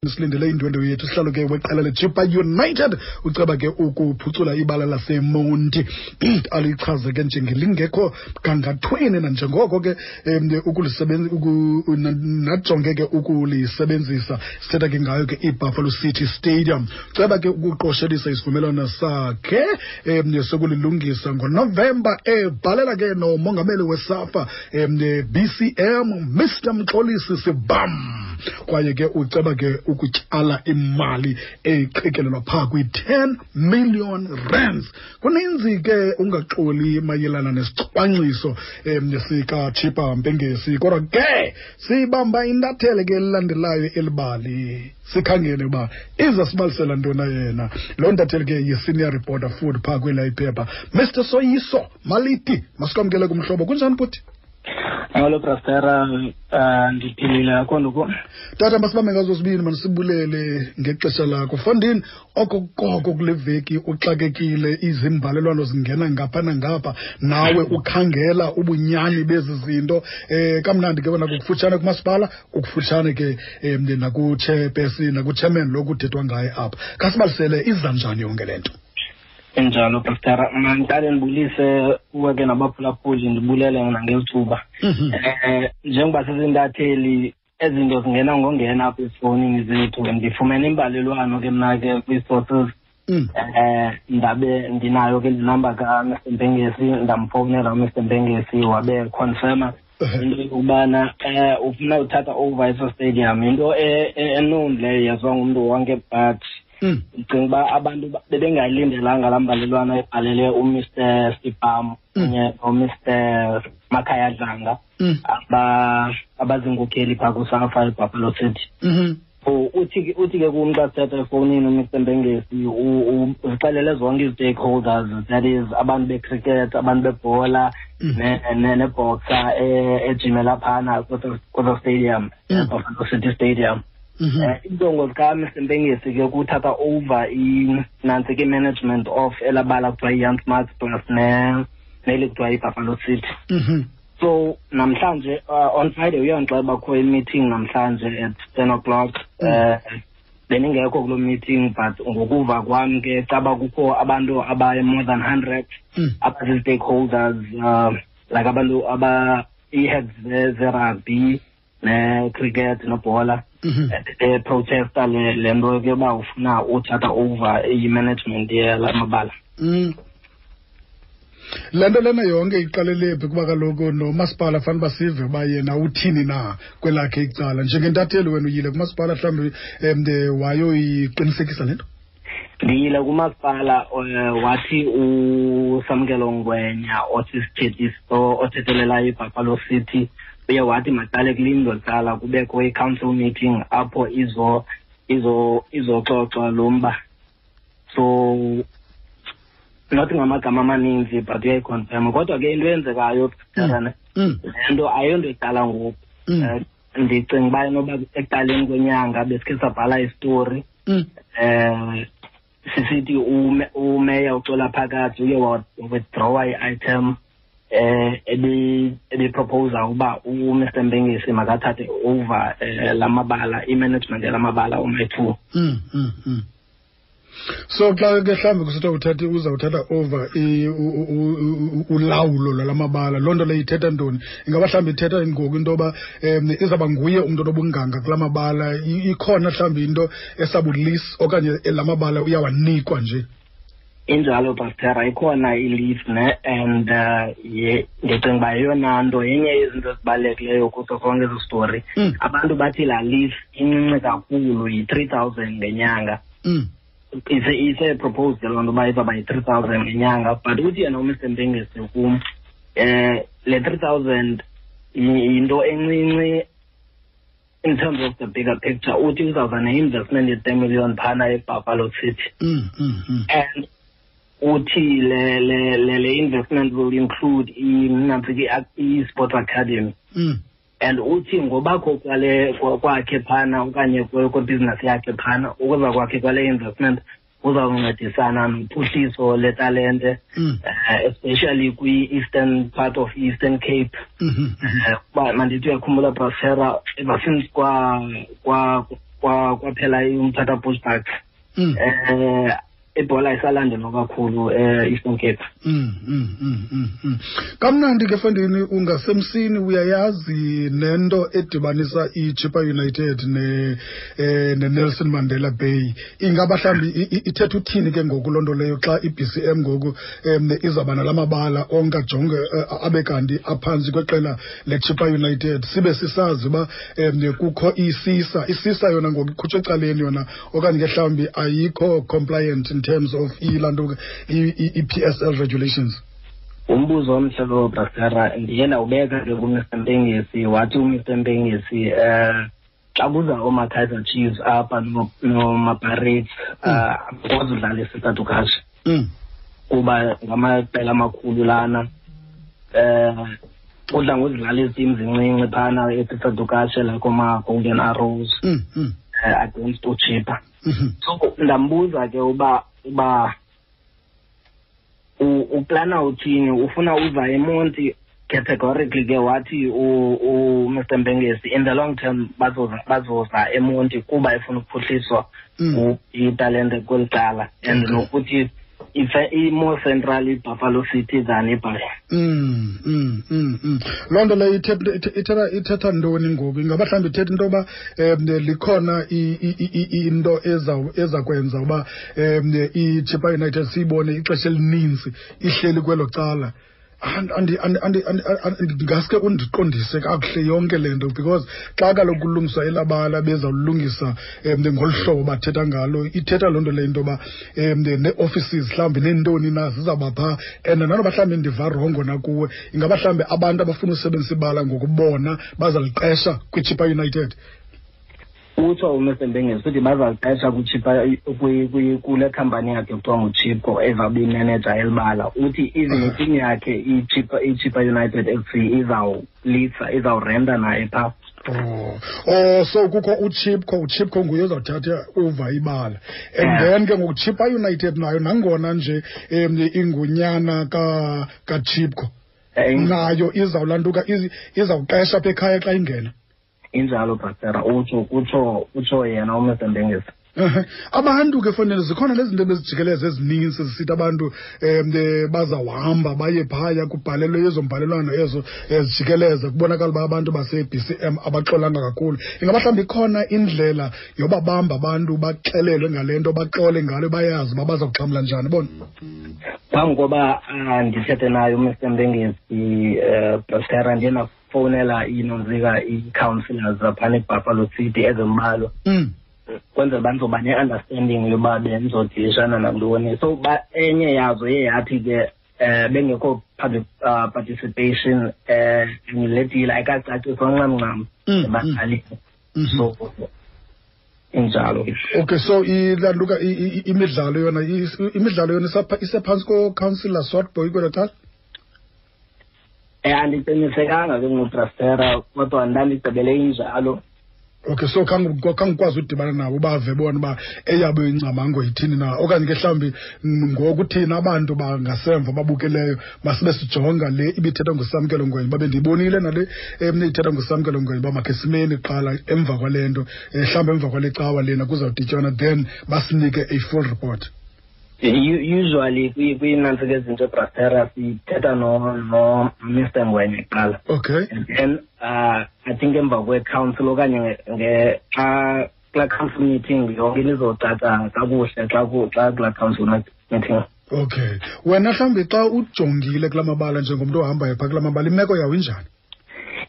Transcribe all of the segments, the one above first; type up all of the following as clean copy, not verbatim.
Silindele indwendwe yethu, sihlalo ke weqela leChippa United uceba ke ukuphucula ibala laseMonti, alichaze ke njengelingekho gangathweni nanjengoko ke najonge ke ukulisebenzisa. Sithetha ke ngayo ke iBuffalo City Stadium. Ceba ke ukuqoshelisa isivumelwano sakhe sokulilungisa ngoNovemba, ebhalela ke nomongameli weSAFA BCM Mr Mxolisi Sibam, kwaye ke uceba ke ukutyala imali eqikelelwa phaa kwi-10 million rands. Kuninzi ke ungaxoli mayelana nesicwangciso sikaChippa Mpengesi, kodwa ke sibamba intathele ke elilandelayo elibali, sikhangele uba iza sibalisela ntona yena loo ntatheli ke yi-senior reporter food phaa kwela iphepha, Mr Soyiso Maliti. Masikwamkele kumhlobo, kunjani bhuti? Hello Brastera, ndiphilile, akho nto. Tata, masibambe ngazo sibini, manisibulele ngexesha lakho. Fondini, okokoko kule veki uxakekile, izimbalelwano zingena ngapha nangapha, nawe ukhangela ubunyani bezi zinto. Kamnandi ke wena kukufutshane kumasipala, kukufutshane ke nakuchairperson, nakuchairman lo kuthethwa ngaye apha. Khasibalisele, iza njani yonke le nto? Injalo Pastor, mandiqale ndibulise kuwe ke nabaphulaphuli, ndibulele nangelithuba. Njengoba sizintatheli, ezinto zingena ngongena apha ezifowunini zethu. Ndifumene imbalelwano ke mna ke kwii-sources. Ndabe ndinayo ke le namba kaMr Mpengesi, ndamfowunela uMr Mpengesi, wabe confirma into yokubana ufuna uthatha over eso stadium. Into enown leyo, yaziwa ngumntu wonke, but ndicinga uba abantu bebengayilindelanga laa mbalelwano ebhalele uMr Sibam kunye noMr Makhaya Dlanga, abaziinkokheli phaa kuSAFA eBuffalo City. So uthi ke kum xa sithetha efowunini uMr Mpengesi, uzixelele zonke ii-stakeholders, that is abantu becricket, abantu bebhola, neboxer ejimela phana kweso stadium, eBuffalo City Stadium. Iinjongo zikaMr Mpengesi ke kuthatha over nantsi ke management of elabala kuthiwa yi-Jan Smuts plus neli kuthiwa yiBuffalo City. So namhlanje, on Friday, uyandixela uba kukho i-meeting namhlanje at 10 o'clock. Bendingekho kuloo meeting, but ngokuva kwam ke caba kukho abantu abaye more than 100 abazi-stakeholders, like abantu aba ii-heads ze-rugby ne-cricket nebhola, beprotesta le nto ke uba ufuna uthatha over i-management yala mabala. Le nto lena yonke iqalele phi? Kuba kaloku nomasipala fanele uba sive uba yena uthini na kwelakhe icala. Njengentatheli wena uyile kumasipala mhlawumbi wayoyiqinisekisa le nto? Ndiyile kumasipala, wathi uSamkelo Ngwenya osisithethi othethelelayo iBuffalo City uye wathi maqale kulindwe kuqala kubekho i-council meeting apho izoxoxwa lo mba. So not ngamagama amaninzi, but uyayiconfirma. Kodwa ke into eyenzekayo, le nto ayonto iqala ngoku. Ndicinga uba inoba ekuqaleni kwenyanga besikhe sabhala isitori sisithi umeya uXola Phakathi uye withdrawa i-item ebi-proposa uba uMr Mpengesi makathathe over lamabala, i-management yalamabala oma-two. So xa ke mhlawumbi kusithiwa uthathe, uzawuthatha over ulawulo lwalamabala, loo nto leyo ithetha ntoni? Ingaba mhlawumbi ithetha ngoku into yoba izawuba nguye umntu onobunganga kula mabala? Ikhona mhlawumbi into esabu-lease okanye la mabala uyawanikwa nje? Injalo Pastera, ikhona i-lease ne, and ye ndicinga uba yeyona nto yenye yezinto ezibalulekileyo kuso sonke esi story. Abantu bathi laa lease incinci kakhulu, yi-3,000 ngenyanga. Ise-proposed loo nto uba izawuba yi-3,000 ngenyanga, but uthi yena uMr Mpengesi kum le 3,000 yinto encinci in terms of the bigger picture. Uthi uzawuza ne-investment ye-10 million phana eBuffalo City and uthi le investment will include nantsi ke i-sports academy and uthi ngobakho kwale kwakhe phana okanye kwebhizinesi yakhe phana, ukuza kwakhe kwale investment uzawuncedisana nophuhliso letalente, especially kwi-eastern part of Eastern Cape. Uba mandithi uyakhumbula Brasera, ever since kwa kwa Kwaphela uMthatha Bush Bucks, ibhola isalandelwa kakhulu e-Eastern Cape. Kamnandi ke fondini, ungasemsini, uyayazi nento edibanisa iChippa United ne-Nelson Mandela Bay. Ingaba mhlawumbi ithetha uthini ke ngoku loo nto leyo xa i-BCM ngoku izawuba nala mabala onke ajonge abe kanti aphantsi kweqela leChippa United, sibe sisazi uba kukho isisa yona ngoku ikhutshwe ecaleni yona, okanye ke mhlawumbi ayikho compliant in terms of ilaa nto i-PSL regulations? Umbuzo omhle lowo, Brastera. Ndiye ndawubeka ke kuMr Mpengesi, wathi uMr Mpengesi xa kuza oomaKaizer Chiefs apha nomaPirates, abakwazi udlala eSisa Dukashe kuba ngamaqela amakhulu lana. Udla ngozidlala ezi team zincinci phana eSisa Dukashe, like oomaGolden Arrows against uChippa. So ndambuza ke uba uplana uthini, ufuna uza eMonti categorically ke. Wathi uMr Mpengesi in the long term bazoza eMonti kuba efuna ukuphuhliswa italente kweli cala and nokuthi i-more central iBuffalo City than iBhayi. Loo nto leyo ithetha ntoni ngoku? Ingaba mhlawumbi ithetha into yoba likhona into eza kwenza uba iChippa United siyibone ixesha elininzi ihleli kwelo cala? Ngaske undiqondise kakuhle yonke le nto, because xa kaloku kulungiswa elabala, bezawulungisa ngolu hlobo bathetha ngalo, ithetha loo nto leyo into yoba nee-offices mhlawumbi neentoni na zizawuba phaa. And nanoba mhlawumbi ndiva wrongo nakuwe, ingaba mhlawumbi abantu abafuna usebenzisa ibala ngokubona bazaliqesha kwiChippa United? Utsho uMr Mpengesi uthi bazaliqesha kuChippa, kule khampani yakhe kuthiwa nguChipco ezawube imeneja elibala. Uthi even iteam yakhe iChippa United FC izawulisa, izawurenta naye phaa. Oh, so kukho uChipco, nguye ozawuthatha uva ibala, and then ke ngoku Chippa United nayo, nangona nje ingunyana kaChipco, nayo izawulantuka, izawuqesha apha ekhaya xa ingena. Injalo, Brastera, utsho yena uMr Mpengesi. Abantu ke fanele zikhona lezi zinto bezijikeleza ezininzi zisithi abantu bazawuhamba baye phaya, kubhalelwe ezo mbhalelwano ezo zijikeleza, kubonakala uba abantu base-BCM abaxolanga kakhulu. Ingaba mhlawumbi ikhona indlela yobabamba abantu baxelelwe ngale nto, baxole ngalo, bayazi uba baza kuxhamla njani bona? Phambi koba ndithethe naye uMr Mpengesi, Brastera, ndiye ndafowunela inontsika ii-councillors zaphana eBuffalo City ezimbalwa kwenzela uba ndizoba ne-understanding yoba bendizodilishana nantoni. So enye yazo iye yathi ke bengekho public participation le deal ayikacaciswa ncam ncam ebadlalini, so injalo. Okay, so ilantuka imidlalo yona, imidlalo yona isephantsi ko-councillor Swartbooi kwelo cala? Andiqinisekanga ke ngoBrastera, kodwa ndandigqibele injalo. Okay, so khangukwazi udibana nabo bave bona uba eyabo ingcamango yithini na, okanye ke mhlawumbi ngoku thina abantu bangasemva babukeleyo masibe sijonga le ibithethwa nguSamkelo Ngwenya, babe ndiyibonile nale ithetha nguSamkelo Ngwenya uba makhe simeni kuqala emva kwale nto, mhlawumbi emva kwale cawa lena kuzawudityanwa, then basinike a full report. Usually kwiinantsika ezinto, Brastera, sithetha no Mr Ngwenya kuqala. And then I think emva kwe-council okanye xa kulaa council meeting yonke into izocaca kakuhle xa kulaa council meeting. Okay, wena mhlawumbi xa ujongile kulaa mabala njengomntu ohambayo phaa kulaa mabala, imeko yawo injani?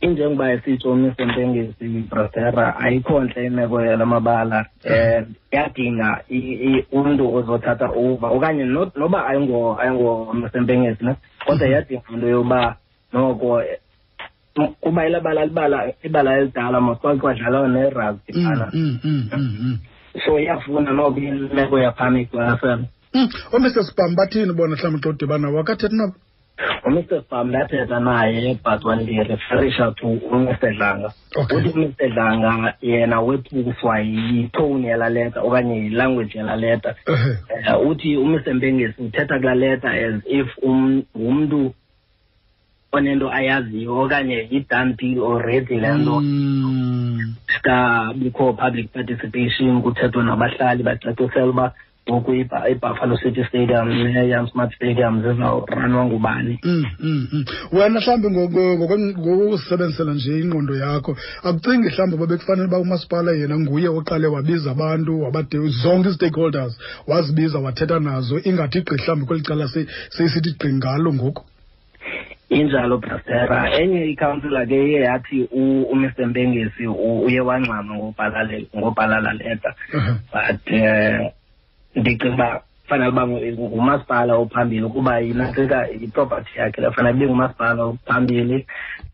Injengoba esitsho uMr Mpengesi, Brastera, ayikho ntle imeko yala mabala. Iyadinga umntu ozothatha over, okanye noba ayingo Mr Mpengesi ne, kodwa iyadinga into yoba noko kuba elabala libala ibala elidala mos, kwake kwadlalwa nerugby phana. So iyafuna noko imeko yaphana iqwalasela. OoMr Sibam bathini bona mhlawumbi xa udibana nabo? Akathethi nabo? UMr Sibam ndathetha naye, but wandireferisha to uMr Dlanga. Uthi uMr Dlanga yena wethuswa yitone yalaa leta okanye yilanguage yalaa leta. Uthi uMr Mpengesi uthetha kulaa leta as if ngumntu. onento ayaziyo okanye yi-done deal already le nto. Kabikho public participation, kuthethwa nabahlali, bacacisela uba ngoku iBuffalo City Stadium neYan Smuts Stadium zizawuranwa ngubani. Wena mhlawumbi ngokusebenzisela nje ingqondo yakho, akucingi mhlawumbi uba bekufanele uba umasipala yena nguye oqale wabiza abantu, wabade zonke ii-stakeholders wazibiza wathetha nazo, ingathi gqi mhlawumbi kweli cala seyisithi gqi ngalo ngoku? Injalo, Brastera. Enye ikhansila ke iye yathi uMr Mpengesi uye wangxama ngobhala laa leta. But ndicinga uba fanele uba ngumasipala ophambili, kuba yinantsika iproperty yakhe le, fanele ibe ngumasipala ophambili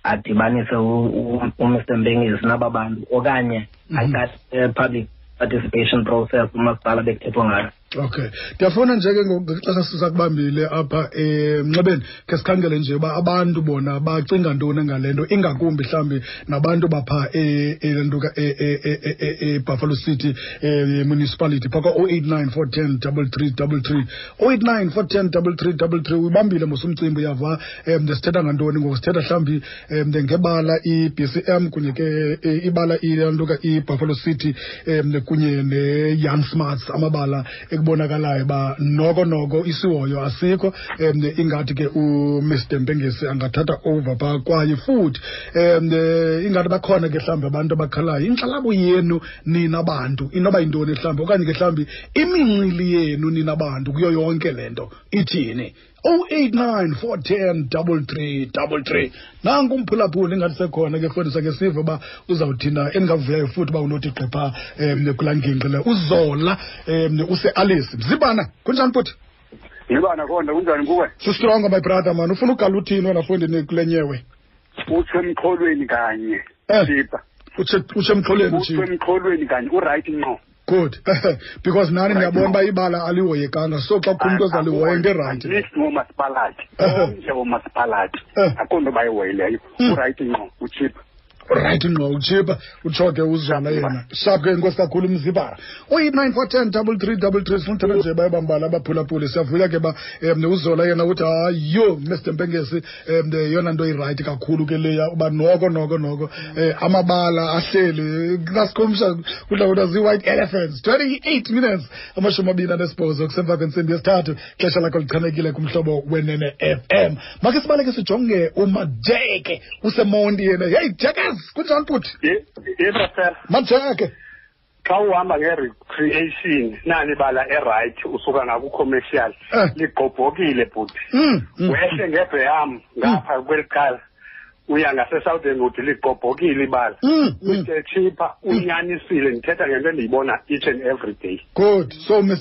adibanise uMr Mpengesi naba bantu, okanye aqale public participation process umasipala bekuthethwa ngayo. Okay, ndiyafuna nje ke ngexesha sisakubambile apha emnxebeni, ke sikhangele nje uba abantu bona bacinga ntoni ngale nto, ingakumbi mhlawumbi nabantu bapha elantuka eBuffalo City Municipality phaka 089 410 3333, 089 410 3333. Uyibambile mos umcimbi, uyava sithetha ngantoni ngoku? Sithetha mhlawumbi ngebala i-BCM kunye ke ibala ilantuka iBuffalo City kunye neJan Smuts, amabala ekubonakalayo uba noko isihoyo asikho. Ingathi ke uMr Mpengesi angathatha over phaa, kwaye futhi ingathi bakhona ke mhlawumbi abantu abakhalayo. Inkxalabo yenu nina bantu inoba yintoni mhlawumbi, okanye ke mhlawumbi imincili yenu nina bantu kuyo yonke le nto ithini? 089 410 3333. Nanku umphulaphuli, ingathi sekhona ke fondisa ke sive uba uzawuthina. Endingavuyayo futhi uba unothi gqipha kulaa ngingqi le. Uzola use-Alice. Mzibana, kunjani bhuti? Yibana konda, kunjani kuwe? Sistrongo, my brother man. Ufuna ugala uthini wena fondini kule nyewe? Utsho emxholweni kanye. Sipha. Utsho emxholweni. Utsho emxholweni kanye, uright ngqo. Good. Because nani ndiyabona uba ibala alihoyekanga, so xa kukho umntu ozalihoya into erayithi. At ngomasipalati, omnye womasipalati akho nto bayihoyileyo. Urayithi ngqo, utshipha. Right ngqo, utshipha, utsho ke uzala yena. Sharp ke, inkosi kakhulu mzibara. 089 410 3333. Sifuna uthetha nje bayabambala abaphulaphuli. Siyavuya ke ba uzola yena uthi hayo Mr Mpengesi, yeyona nto irayithi kakhulu ke leya, uba noko amabala ahleli nasikhumsha kudla kuthiwa zii-white elephants. 28 minutes 28 kusemva kwentsimbi yesithathu, xesha lakho lichanekile kumhlobo Wenene FM. Makhe sibaleke sijonge uMajeke useMonti yena. Hey Jekes, kunjani bhuti? Yebo sir. Majeke, xa uhamba nge-recreation nani bala e-right usuka ngaku-commercial ligqobhokile bhuti. Wehle ngebheyam ngapha kweli cala uya ngase-Southern Wood, ligqobhokile ibala. Mr Chippa unyanisile, ndithetha ngento endiyibona each and every day. Good. So nina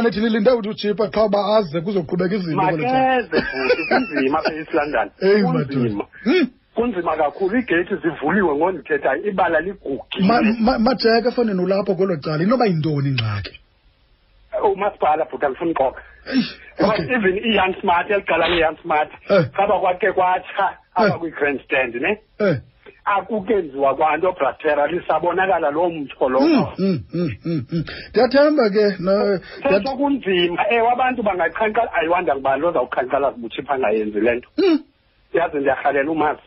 nithi nilinde uthi uChippa qha uba aze kuzoqhubeka izinto. Makeze bhuti, kunzima apha e-East London. Kunzima. Kunzima kakhulu, iigeyithi zivuliwe ngondithethayo, ibala ligugile. Majeke fanele ulapho kwelo cala, inoba yintoni ingxaki? Umasipala bhuti, andifuni uxoka. Even iYan Smart, elicala leYan Smart, khaba kwakhe kwatsha apha kwi-grandstand ne? Akukenziwa kwanto Bratera, lisabonakala loo mtsho lowo. Ndiyathemba ke. Sesho kunzima, ewe abantu bangaqhankqala, ayiwanda ngubani ozawuqhankqalaza ubuTshipha angayenzi le nto. Yazi ndiyarhalela umazi.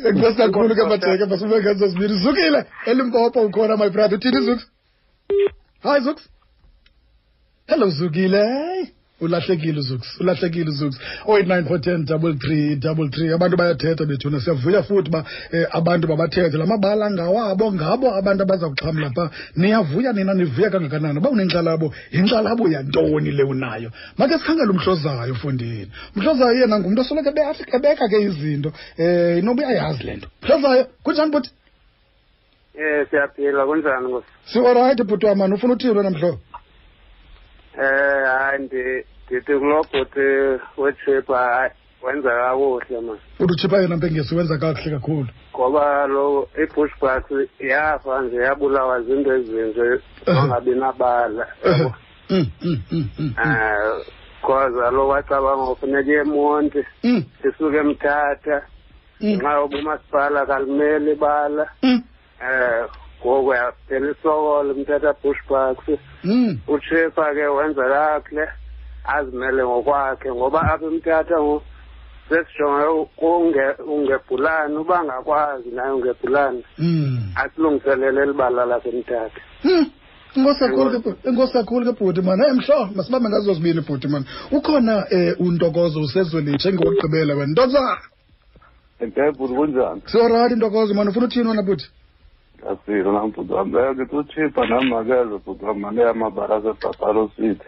Enkosi kakhulu ke Majeke, masibeke ngezo zibini. Zukile, eLimpopo ukhona my brother. Uthini Zuks? Hi Zuks. Hello Zukile. Ulahlekile uZuks, ulahlekile uZuks. 089 410 3333. Abantu bayathetha bethuna, siyavuya futhi uba abantu babathethe. La mabala ngawabo, ngabo abantu abaza kuxhamla pha. Niyavuya nina, nivuya kangakanani? Uba unenkxalabo, yinkxalabo yantoni le unayo? Make sikhangele uMhlozayo mfondini. Umhlozayo yena ngumntu osoloko ebeka ke izinto. Inoba uyayazi le nto. Mhlozayo, kunjani bhuti? Siyaphila, kunjani nkosi? Si-alright bhuti wam, man. Ufuna uthini wena mhlobo? Hayi ndithi kulo bhuti weChippa, hayi wenza kakuhle man. Uthi uChippa yena Mpengesi wenza kakuhle kakhulu. Ngoba lo iBushbucks yafa nje, yabulawa zinto ezinje ongabi nabala. Cause lo wacabanga kufuneka eMonti, isuke eMthatha, ngenxa yoba umasipala kalimeli ibala. Ngoku yaphela isokolo Mthatha Bushbucks. uChippa ke wenza kakuhle. Azimele ngokwakhe, ngoba apha eMthatha ngoku sesijonge ungebhulane, uba angakwazi naye ungebhulane asilungiselele elibala laseMthatha. Enkosi kakhulu ke bhuti mani. Hey mhlo, masibambe ngazo zibini bhuti mani. Ukhona uNtokozo usezwelitsha engowokugqibela wena. Ntokozo. Eke bhuti, kunjani? Siyorayithi Ntokozo mani, ufuna uthini wena bhuti? Asilo nam bhuti wam. Ngithi utshipa nam makeze bhuti wam, mane amabala aseBuffalo City.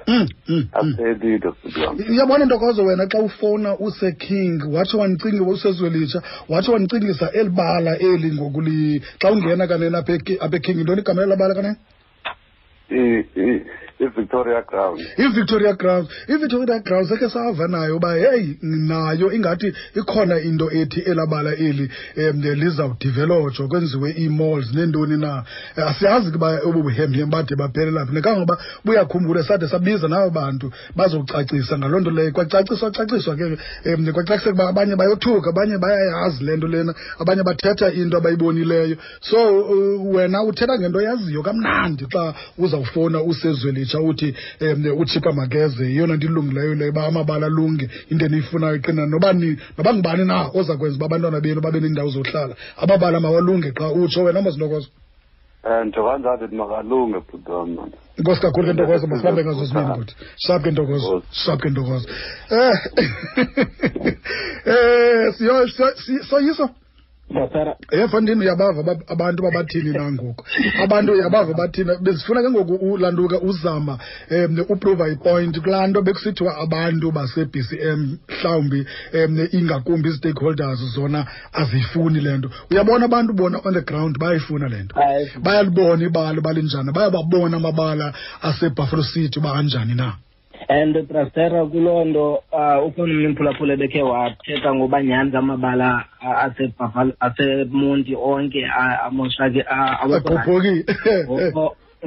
Aphelile bhuti wam. Uyabona Ntokozo wena xa ufowuna useKing, watsho wandicinga usezwelitsha, watsho wandicingisa eli bala eli ngokuli xa ungena kanene apha eKing, yintoni igama lela bala kanene? I-Victoria Ground. I-Victoria Ground. I-Victoria Ground sekhe sava nayo uba heyi nayo ingathi ikhona into ethi elabala eli lizawudevelopshwa kwenziwe ii-malls neentoni na. Asiyazi ke uba obu buhemhem bade baphelela phi. Kangangoba buyakhumbula sade sabiza nabo bantu bazocacisa ngaloo nto leyo. Kwacaciswa caciswa ke kwacaciseka uba abanye bayothuka, abanye bayayazi le nto lena, abanye bathetha into abayibonileyo. So wena uthetha ngento oyaziyo kamnandi xa uzawufowuna usezwelitsha uthi utshipa makeze, yeyona nto ilungileyo leyo uba amabala alunge, into eniyifunayo iqina noba noba ngubani na oza kwenza uba abantwana benu babe neendawo zohlala, amabala mawalunge qha. Utsho wena Mazintokozo. Nto kanjalo ndithi makalunge bhuti wam mani. Enkosi kakhulu ke Ntokozo, masibambe ngazo zibini bhuti. Sharp ke Ntokozo, sharp ke Ntokozo. Siyo soyiso. Mfondini, uyabava abantu babathini na ngoku? Abantu uyabava bathini? Bezifuna ke ngoku ulanduka uzama uprova ipoint kulaa nto bekusithiwa abantu base-BCM mhlawumbi ingakumbi ii-stakeholders zona aziyifuni le nto. Uyabona abantu bona on the ground bayayifuna le nto. Bayalibona ibala uba linjani, bayababona amabala aseBuffalo City uba anjani na. And Brastera, kuloo nto ukhona umntu umphulaphula ebekhe wathetha ngoba nyhani amabala aseMonti onke amoshake, agqobhokile.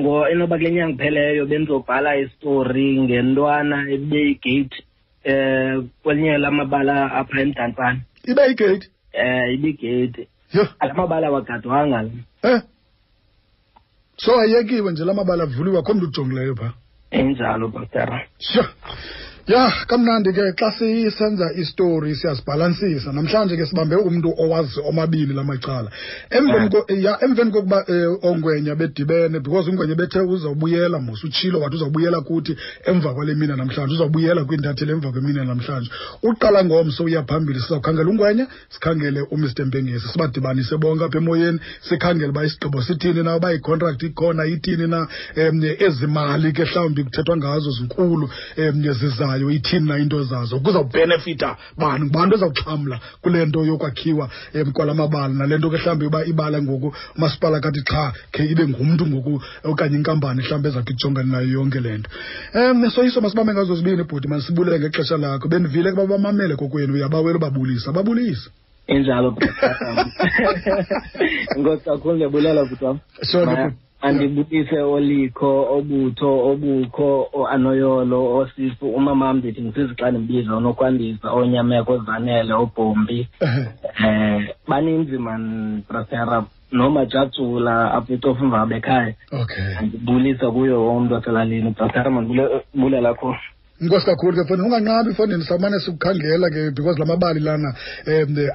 Ngo inoba kule nyanga ipheleyo bendizobhala isitori ngentwana ebeyigate kwelinye lamabala apha eMdantsane. Ibe yigate? Ibigate. Yho. Amabala awagadwanga la. So ayekiwe nje lamabala avuliwe, akho mntu ujongileyo phaa. Injalo, Pastor. Sure. Ya, kamnandi ke xa sisenza istory siyazibhalansisa. Namhlanje ke sibambe umntu owazi omabini lamacala. Emveni kokuba ongwenya bedibene, because ungwenya bethe uzawubuyela mos, utshilo wathi uzawubuyela kuthi emva kwale mina namhlanje, uzawubuyela kwiintatheli emva kwemina namhlanje. Uqala ngomso uya phambili, sizawukhangela ungwenya, sikhangele uMr Mpengesi, sibadibanise bonke apha emoyeni, sikhangele uba isigqibo sithini na, uba icontract ikhona ithini na, ezi mali ke mhlawumbi kuthethwa ngazo zinkulu, zizayo ithini na into zazo, kuzawubenefita bani, ngubani ozawuxhamla kule nto yokwakhiwa kwala mabala, nale nto ke mhlawumbi uba ibala ngoku umasipala kathi xha khe ibe ngumntu ngoku okanye inkampani mhlawumbi ezawuthi ijongane nayo yonke le nto. Soyiso, masibambe ngazo zibini bhuti, masibulele ngexesha lakho. Bendivile ke babamamele kokwenu, uyabawela ubabulisa, babulise. Injalo. Enkosi kakhulu, ndiyabulela bhuti wam. Sure, bhuti. Andibulise olikho, obutho, obukho, oanoyolo, osifu, umamam ndithi ngisizi xa ndimbiza, onokwandisa, onyameko, ozanele, obhombi. Baninzi man, Brasera, nomajatsula apha eCofimvaba ekhaya. Andibulisa kuyo wonke umntu waselalini. Brasera, mandibulela kakhulu. Inkosi kakhulu ke mfondini, unganqabi mfondini, sawumane sikukhangela ke because la mabali lana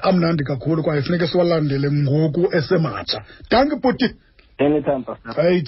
amnandi kakhulu kwaye funeke siwalandele ngoku esematsha. Dankie bhuti. Anytime, Pastor. Hey,